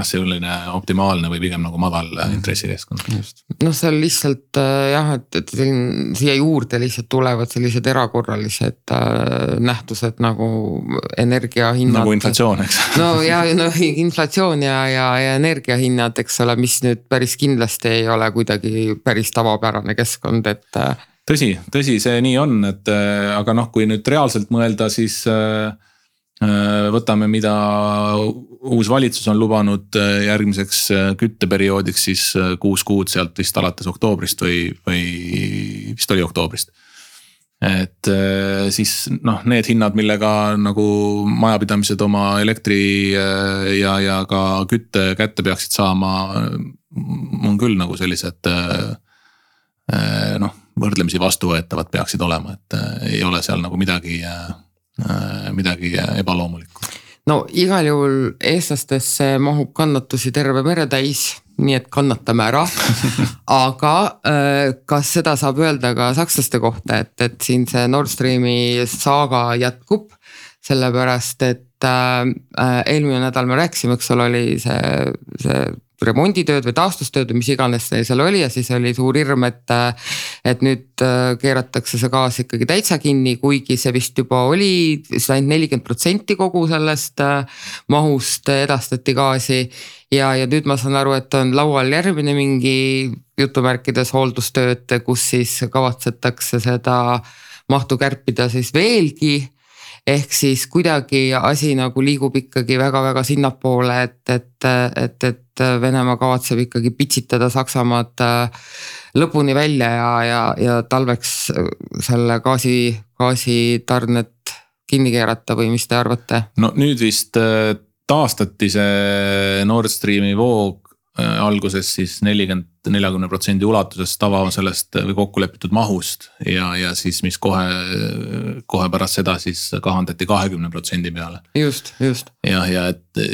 selline optimaalne või pigem nagu madal intressikeskkond. See on lihtsalt jah, et siia juurde lihtsalt tulevad sellised erakorralised nähtused nagu energiahinnad. Nagu inflatsioon, eks? Inflatsioon ja energiahinnad, eks ole, mis nüüd päris kindlasti ei ole kuidagi päris tavapärane keskkond, et Tõsi, see nii on, et aga kui nüüd reaalselt mõelda, siis võtame, mida uus valitsus on lubanud järgmiseks kütteperioodiks, siis 6 kuud sealt vist alates oktoobrist või vist oli oktoobrist. Et siis need hinnad, millega nagu majapidamised oma elektri ja ka kütte kätte peaksid saama, on küll nagu sellised võrdlemisi vastuvõetavad peaksid olema, et ei ole seal nagu midagi ebaloomulikku. no igal juhul eestlastesse mahub kannatusi terve mere täis, nii et kannatame ära. Aga kas seda saab öelda ka sakslaste kohta, et siin see Nord Streami saaga jätkub, sellepärast et eelmine nädal me rääkisime, eks ole, oli see remonditööd või taastustööd või mis iganes seal oli ja siis oli suur hirm, et nüüd keeratakse see gaas ikkagi täitsa kinni, kuigi see vist juba oli, see ainult 40% kogu sellest mahust edastati gaasi ja nüüd ma saan aru, et on laual järgmine mingi jutumärkides hooldustööd, kus siis kavatsetakse seda mahtu kärpida siis veelgi. Ehk siis kuidagi asi nagu liigub ikkagi väga-väga sinnapoole, et Venemaa kavatseb ikkagi pitsitada Saksamaad lõpuni välja ja talveks selle gaasitarnet kinni keerata või mis te arvate? No nüüd vist taastati see Nord Streami voog alguses siis 40% ulatuses tava sellest või kokkulepitud mahust ja siis mis kohe pärast seda siis kahandati 20% peale. Just. Ja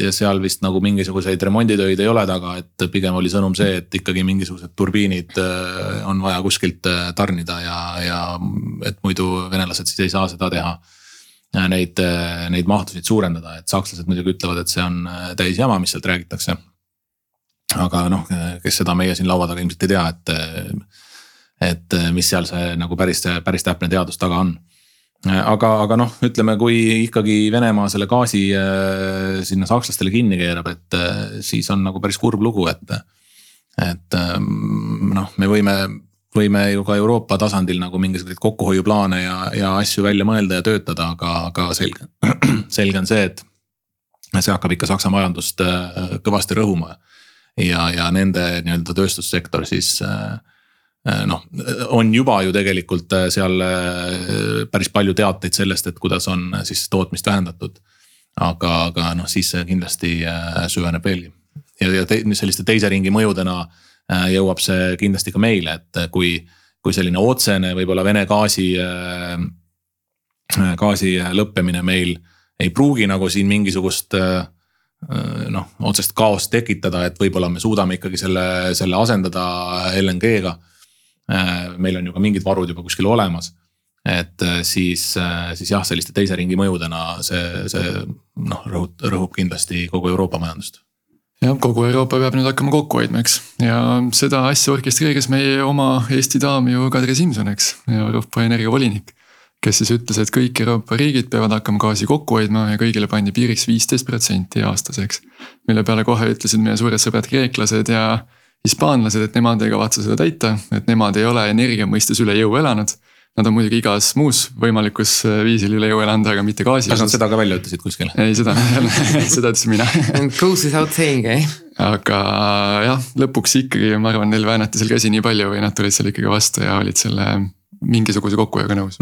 seal vist nagu mingisuguseid remonditöid ei ole taga, et pigem oli sõnum see, et ikkagi mingisugused turbiinid on vaja kuskilt tarnida ja et muidu venelased siis ei saa seda teha. Neid mahtusid suurendada, et sakslased muidugi ütlevad, et see on täis jama, mis sealt räägitakse. Aga kes seda meie siin laua taga ilmselt ei tea, et mis seal see nagu päris täpne teadus taga on. Aga ütleme, kui ikkagi Venemaa selle gaasi sinna sakslastele kinni keerab, et siis on nagu päris kurb lugu, et me võime ju ka Euroopa tasandil nagu mingisuguseid kokkuhoiuplaane ja asju välja mõelda ja töötada, aga selge on see, et see hakkab ikka Saksa majandust kõvasti rõhuma. Ja nende nii-öelda tööstussektor siis on juba ju tegelikult seal päris palju teateid sellest, et kuidas on siis tootmist vähendatud. Aga siis kindlasti süveneb veelgi. Ja selliste teise ringi mõjudena jõuab see kindlasti ka meile, et kui selline otsene võib-olla Vene gaasi lõppemine meil ei pruugi nagu siin mingisugust otsest kaost tekitada, et võib-olla me suudame ikkagi selle asendada LNG-ga. Meil on ju ka mingid varud juba kuskil olemas, et siis jah, selliste teise ringi mõjudena see rõhub kindlasti kogu Euroopa majandust. Ja kogu Euroopa peab nüüd hakkama kokku hoidma, eks. Ja seda asja orkestreeris meie oma Eesti daam ju Kadri Simson, eks, Euroopa energiavolinik, kes siis ütles, et kõik Euroopa riigid peavad hakkama gaasi kokku hoidma ja kõigile pandi piiriks 15% aastaseks. Mille peale kohe ütlesid meie suured sõbrad kreeklased ja hispaanlased, et nemad ei kavatse seda täita, et nemad ei ole energia mõistes üle jõu elanud. Nad on muidugi igas muus võimalikus viisil üle jõu elanud, aga mitte gaasi. Kas nad seda ka välja ütlesid kuskil? Ei, seda ütlesin mina. Goes without saying, Aga jah, lõpuks ikkagi ma arvan, neil väänati seal käsi nii palju või nad tulid seal ikkagi vastu ja olid selle mingisuguse kokkuhoiuga nõus.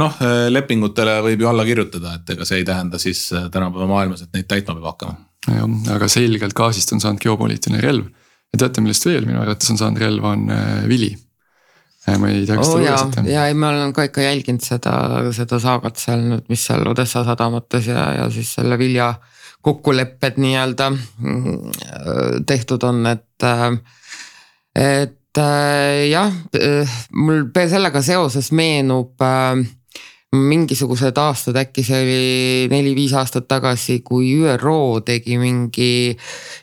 Lepingutele võib ju alla kirjutada, et ega see ei tähenda siis tänapäeva maailmas, et neid täitma peab hakkama. Ja, aga selgelt gaasist on saanud geopoliitiline relv. Ja teate, millest veel minu arvates on saanud relv on vili. Ma ei tea, kas te lugesite. Ja ma olen ka ikka jälginud seda saagat seal nüüd, mis seal Odessa sadamates ja siis selle vilja kokkulepped nii-öelda tehtud on, et jah, mul sellega seoses meenub mingisugused aastad, äkki see oli 4-5 aastat tagasi, kui ÜRO tegi mingi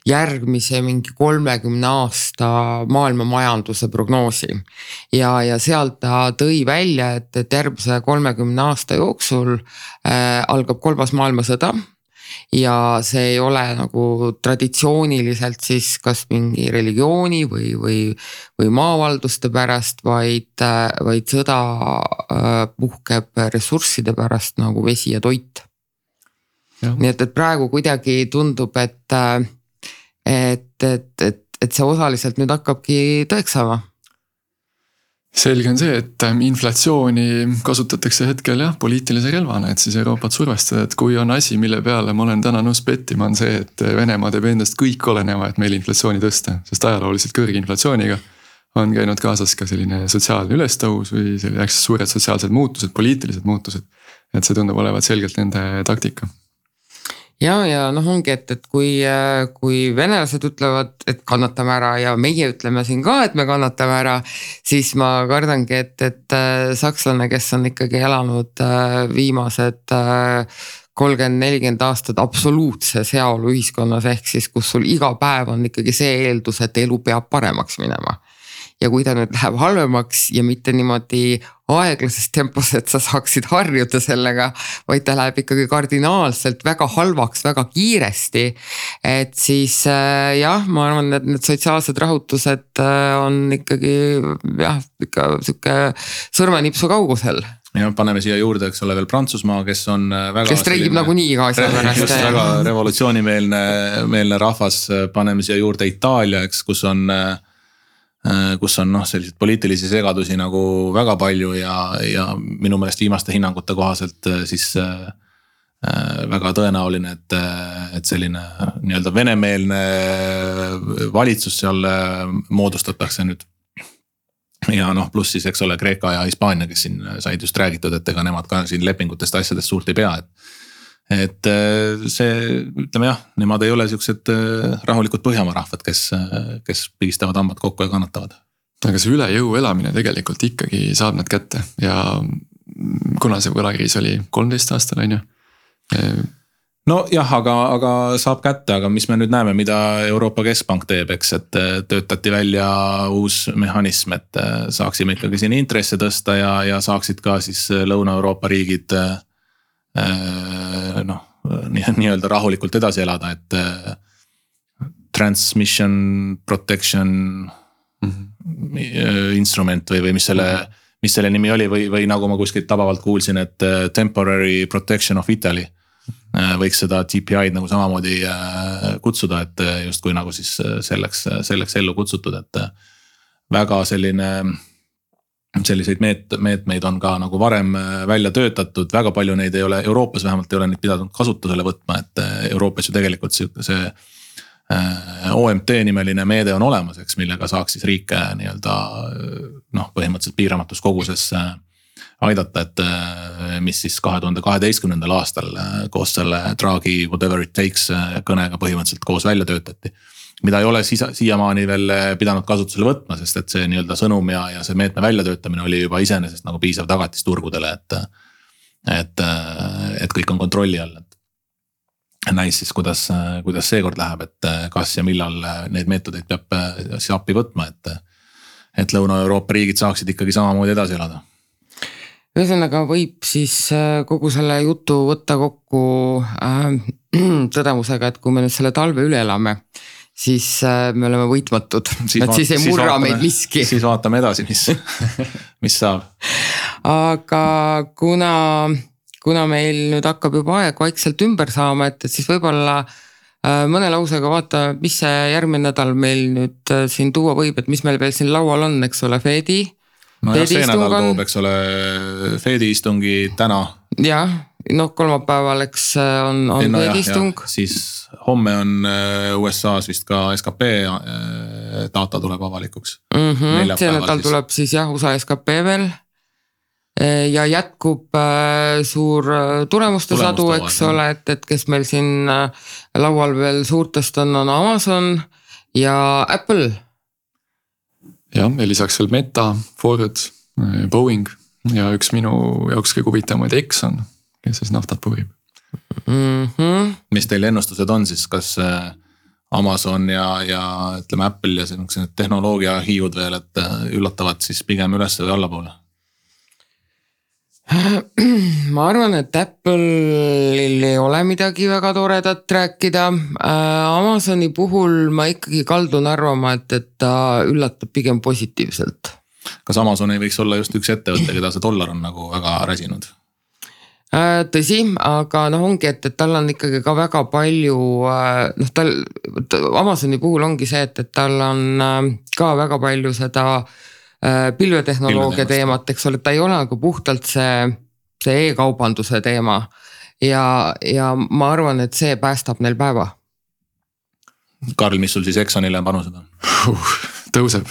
järgmise 30 aasta maailma majanduse prognoosi. Ja sealt ta tõi välja, et järgmise 30 aasta jooksul algab 3. maailmasõda. Ja see ei ole nagu traditsiooniliselt siis kas mingi religiooni või maavalduste pärast, vaid sõda puhkeb ressursside pärast nagu vesi ja toit. Ja. Nii et praegu kuidagi tundub, et see osaliselt nüüd hakkabki tõeks saama. Selge on see, et inflatsiooni kasutatakse hetkel jah, poliitilise relvana, et siis Euroopat survestada, et kui on asi, mille peale ma olen täna nõus pettima, on see, et Venemaa teeb endast kõik oleneva, et meil inflatsiooni tõsta, sest ajalooliselt kõrge inflatsiooniga on käinud kaasas ka selline sotsiaalne ülestõus või suured sotsiaalsed muutused, poliitilised muutused, et see tundub olevat selgelt nende taktika. ja noh, ongi, et kui venelased ütlevad, et kannatame ära ja meie ütleme siin ka, et me kannatame ära, siis ma kardangi, et sakslane, kes on ikkagi elanud viimased 30-40 aastat absoluutses heaolu ühiskonnas, ehk siis kus sul iga päev on ikkagi see eeldus, et elu peab paremaks minema. Ja kui ta nüüd läheb halvemaks ja mitte niimoodi aeglases tempos, et sa saaksid harjuda sellega, vaid ta läheb ikkagi kardinaalselt väga halvaks, väga kiiresti. Et siis jah, ma arvan, et need sotsiaalsed rahutused on ikkagi jah, ikka siuke sõrmenipsu kaugusel. Ja paneme siia juurde, eks ole veel Prantsusmaa, kes on väga... Kes streigib nagu nii iga asja pärast. Just väga revolutsioonimeelne rahvas, paneme siia juurde Itaalia, eks, kus on selliseid poliitilisi segadusi nagu väga palju ja minu meelest viimaste hinnangute kohaselt siis väga tõenäoline, et selline nii-öelda venemeelne valitsus seal moodustatakse nüüd. Ja pluss siis, eks ole, Kreeka ja Hispaania, kes siin said just räägitud, et ega nemad ka siin lepingutest asjadest suurt ei pea, et see, ütleme jah, nemad ei ole siuksed rahulikud Põhjamaa rahvad, kes pigistavad hambad kokku ja kannatavad. Aga see üle jõu elamine tegelikult ikkagi saab nad kätte ja kuna see võlakriis oli 13 aastal, on ju? No jah, aga saab kätte, aga mis me nüüd näeme, mida Euroopa Keskpank teeb, eks, et töötati välja uus mehhanism, et saaksime ikkagi siin intresse tõsta ja saaksid ka siis Lõuna-Euroopa riigid nii-öelda rahulikult edasi elada, et transmission protection instrument või mis selle nimi oli või nagu ma kuskilt tabavalt kuulsin, et temporary protection of Italy võiks seda TPI-d nagu samamoodi kutsuda, et just kui nagu siis selleks ellu kutsutud, et väga selliseid meetmeid on ka nagu varem välja töötatud, väga palju neid ei ole, Euroopas vähemalt ei ole neid pidanud kasutusele võtma, et Euroopas ju tegelikult see OMT nimeline meede on olemas, eks, millega saaks siis riike nii-öelda põhimõtteliselt piiramatus koguses aidata, et mis siis 2012. aastal koos selle Draghi whatever it takes kõnega põhimõtteliselt koos välja töötati. Mida ei ole siiamaani veel pidanud kasutusele võtma, sest et see nii-öelda sõnum ja see meetme väljatöötamine oli juba iseenesest nagu piisav tagatis turgudele, et kõik on kontrolli all. Näis siis, kuidas seekord läheb, et kas ja millal neid meetodeid peab siis appi võtma, et Lõuna-Euroopa riigid saaksid ikkagi samamoodi edasi elada. Ühesõnaga võib siis kogu selle jutu võtta kokku tõdemusega, et kui me nüüd selle talve üle elame, siis me oleme võitmatud, siis ei murra meid miski. Siis vaatame edasi, mis saab. Aga kuna meil nüüd hakkab juba aeg vaikselt ümber saama, et siis võib-olla mõne lausega vaata, mis see järgmine nädal meil nüüd siin tuua võib, et mis meil veel siin laual on, eks ole, Fedi. No jah, see nädal toob, eks ole, Fedi istungi täna. Jah, kolmapäeval, eks on Fedi istung. Siis homme on USA's vist ka SKP data tuleb avalikuks. See nädal tuleb siis jah, USA SKP veel. Ja jätkub suur tulemuste sadu, eks ole, et kes meil siin laual veel suurtest on Amazon ja Apple. Ja lisaks veel Meta, Ford, Boeing ja üks minu jaoks kõige huvitavaid Exxon, kes siis naftat puhib. Mis teil ennustused on siis, kas Amazon ja ütleme Apple ja see tehnoloogia hiiud veel, et üllatavad siis pigem üles või allapoole? Ma arvan, et Apple'il ei ole midagi väga toredat rääkida. Amazoni puhul ma ikkagi kaldun arvama, et ta üllatab pigem positiivselt. Kas Amazon ei võiks olla just üks ettevõte, keda see dollar on nagu väga räsinud? Tõsi, aga ongi, et tal on ikkagi ka väga palju, Amazoni puhul ongi see, et tal on ka väga palju seda pilvetehnoloogia teemat, eks ole, ta ei ole nagu puhtalt see e-kaubanduse teema ja ma arvan, et see päästab neil päeva. Karl, mis sul siis Exxonile panused on? Tõuseb.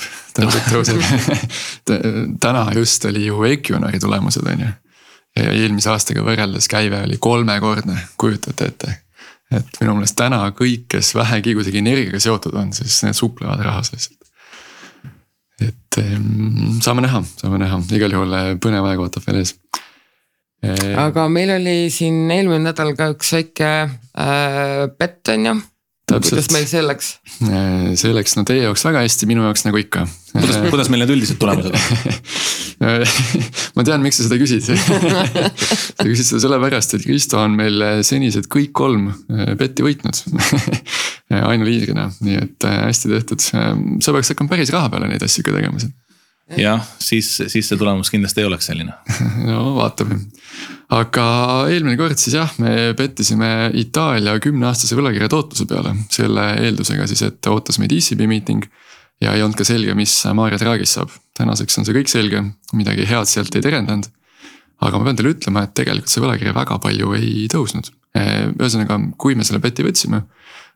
Täna just oli ju Equinori tulemused, on ju. Ja eelmise aastaga võrreldes käive oli 3-kordne, kujutate ette. et minu meelest täna kõik, kes vähegi kuidagi energiaga seotud on, siis need suplevad rahas lihtsalt. Et saame näha, igal juhul põnev aeg ootab veel ees. Aga meil oli siin eelmine nädal ka üks väike pett on ju. Kuidas meil see läks? See läks no teie jaoks väga hästi, minu jaoks nagu ikka. Kuidas meil need üldised tulemused on? Ma tean, miks sa seda küsid. Sa küsid seda sellepärast, et Kristo on meil senised kõik 3 petti võitnud. Ainuliidrina, nii et hästi tehtud. Sa peaks hakkama päris raha peale neid asju ka tegema. Jah, siis see tulemus kindlasti ei oleks selline. No vaatame. Aga eelmine kord siis jah, me pettisime Itaalia 10-aastase võlakirja tootluse peale. Selle eeldusega siis, et ootas meid ECB meeting ja ei olnud ka selge, mis Mario Draghist saab. Tänaseks on see kõik selge, midagi head sealt ei terendanud. Aga ma pean teile ütlema, et tegelikult see võlakirja väga palju ei tõusnud. Ühesõnaga, kui me selle peti võtsime,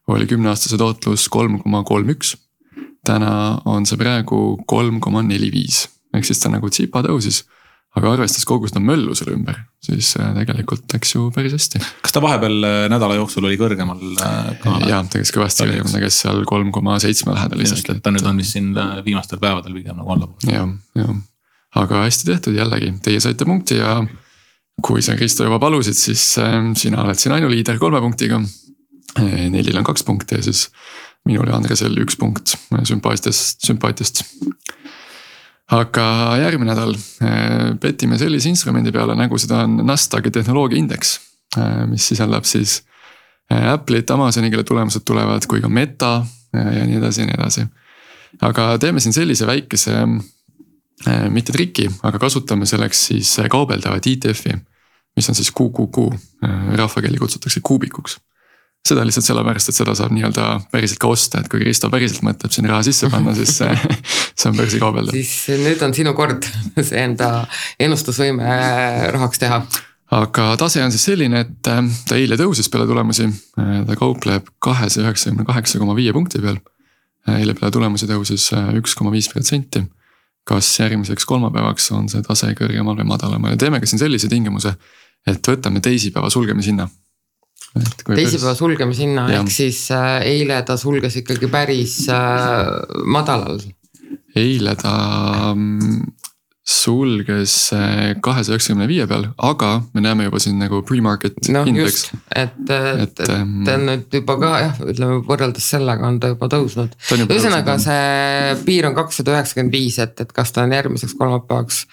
oli 10-aastase tootlus 3,31. Täna on see praegu 3,45. Ehk siis ta nagu tsipa tõusis. Aga arvestas kogu seda möllu selle ümber, siis tegelikult läks ju päris hästi. Kas ta vahepeal nädala jooksul oli kõrgemal? Jaa, tegeks kõvasti kõrgemal, tegeks seal 3,7 lähedal lihtsalt. Ta nüüd on vist siin viimastel päevadel pigem nagu allapool. Jah. Aga hästi tehtud jällegi, teie saite punkti ja kui sa Kristo juba palusid, siis sina oled siin ainuliider 3 punktiga. Nelil on 2 punkti ja siis minul ja Andresel 1 punkt sümpaatiast. Aga järgmine nädal petime sellise instrumendi peale, nagu seda on Nasdaqi tehnoloogiaindeks, mis sisaldab siis Apple'it, Amazoni, kelle tulemused tulevad, kui ka Meta ja nii edasi. Aga teeme siin sellise väikese, mitte triki, aga kasutame selleks siis kaubeldavat ETF-i, mis on siis QQQ, rahvakeeli kutsutakse kuubikuks. Seda lihtsalt sellepärast, et seda saab nii-öelda päriselt ka osta, et kui Kristo päriselt mõtleb siin raha sisse panna, siis see on börsi kaubelda. Siis nüüd on sinu kord see enda ennustusvõime rahaks teha. Aga tase on siis selline, et ta eile tõusis peale tulemusi, ta kaupleb 298,5 punkti peal. Eile peale tulemusi tõusis 1,5%. Kas järgmiseks kolmapäevaks on see tase kõrgemal või madalamal ja teeme ka siin sellise tingimuse, et võtame teisipäeva sulgemishinna. Teisipäeva sulgemishinna, ehk siis eile ta sulges ikkagi päris madalal. Eile ta sulges 295 peal, aga me näeme juba siin nagu pre-market index. Et ta on nüüd juba ka jah, ütleme võrreldes sellega on ta juba tõusnud. Ühesõnaga see piir on 295, et kas ta on järgmiseks kolmapäevaks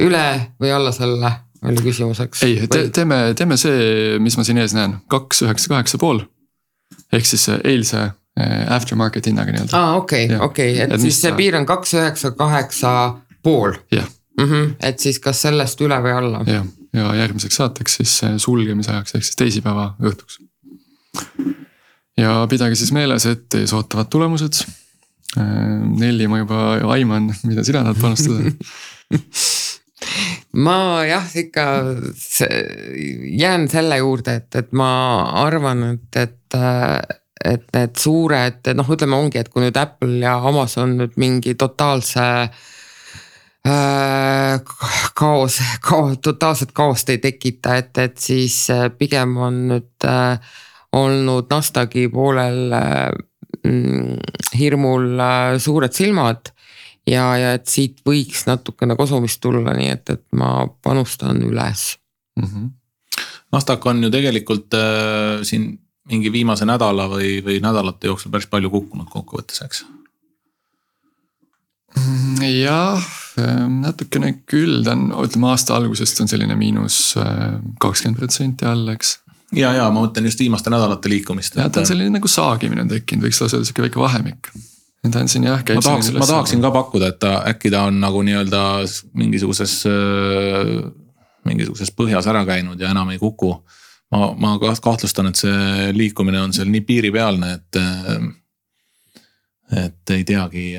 üle või alla selle oli küsimuseks. Ei, teeme see, mis ma siin ees näen, 298,5. Ehk siis eilse aftermarket hinnaga nii-öelda. Okei, et siis see piir on 298,5. Jah. Et siis kas sellest üle või alla? Ja järgmiseks saateks siis sulgemise ajaks, ehk siis teisipäeva õhtuks. Ja pidage siis meeles, et ees ootavad tulemused. Nelli ma juba aiman, mida sina tahad panustada. Ma jah, ikka jään selle juurde, et ma arvan, et need suured, ütleme ongi, et kui nüüd Apple ja Amazon nüüd mingi totaalse totaalset kaost ei tekita, et siis pigem on nüüd olnud Nasdaqi poolel hirmul suured silmad. Ja et siit võiks natukene kosumist tulla, nii et ma panustan üles. Nasdaq on ju tegelikult siin mingi viimase nädala või nädalate jooksul päris palju kukkunud kokkuvõttes, eks? Jah, natukene küll, ta on, ütleme aasta algusest on selline miinus 20% all, eks? Ja ma mõtlen just viimaste nädalate liikumist. Ja ta on selline nagu saagimine tekkinud, võiks lausa öelda väike vahemik. Ta on siin jah, käib ma tahaksin ka pakkuda, et äkki ta on nagu nii-öelda mingisuguses põhjas ära käinud ja enam ei kuku. Ma kahtlustan, et see liikumine on seal nii piiripealne, et ei teagi,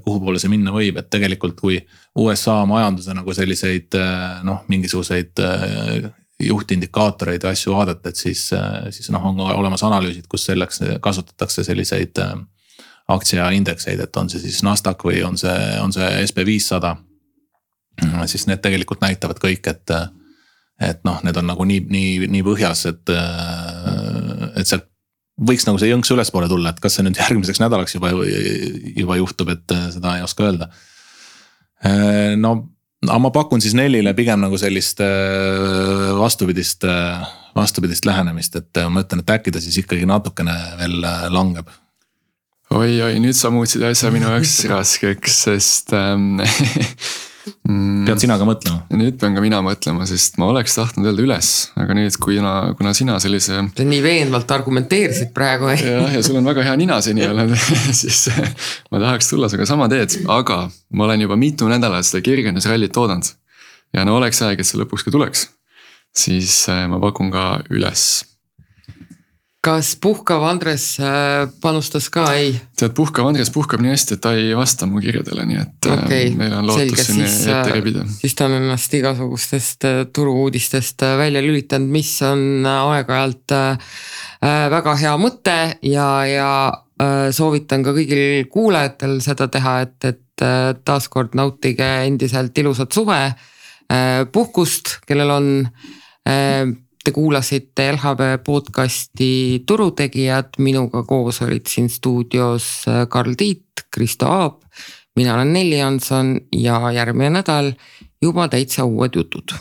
kuhu poole see minna võib, et tegelikult kui USA majanduse nagu selliseid mingisuguseid juhtindikaatoreid ja asju vaadata, et siis on olemas analüüsid, kus selleks kasutatakse selliseid aktsiaindekseid, et on see siis Nasdaq või on see SP500, siis need tegelikult näitavad kõik, et need on nagu nii põhjas, et sealt võiks nagu see jõnks ülespoole tulla, et kas see nüüd järgmiseks nädalaks juba juhtub, et seda ei oska öelda. No ma pakun siis Nellile pigem nagu sellist vastupidist lähenemist, et ma ütlen, et äkki ta siis ikkagi natukene veel langeb. Oi, nüüd sa muutsid asja minu jaoks raskeks, sest pead sina ka mõtlema? Nüüd pean ka mina mõtlema, sest ma oleks tahtnud öelda üles, aga nüüd kuna sina sellise... Sa nii veenvalt argumenteerisid praegu. Ja sul on väga hea nina seni olnud, siis ma tahaks tulla sinuga sama teed, aga ma olen juba mitu nädalat seda kergendusrallit oodanud. Ja no oleks aeg, et see lõpuks ka tuleks, siis ma pakun ka üles. Kas puhkav Andres panustas ka? Ei. Tead, puhkav Andres puhkab nii hästi, et ta ei vasta mu kirjadele, nii et meil on lootus sinni ette rebida. Siis ta on ennast igasugustest turuuudistest välja lülitanud, mis on aeg-ajalt väga hea mõte ja soovitan ka kõigil kuulajatel seda teha, et taaskord nautige endiselt ilusat suve, puhkust, kellel on... Te kuulasite LHV podcasti Turutegijad, minuga koos olid siin stuudios Karl Tiit, Kristo Aab, mina olen Nelli Jansson ja järgmine nädal juba täitsa uued jutud.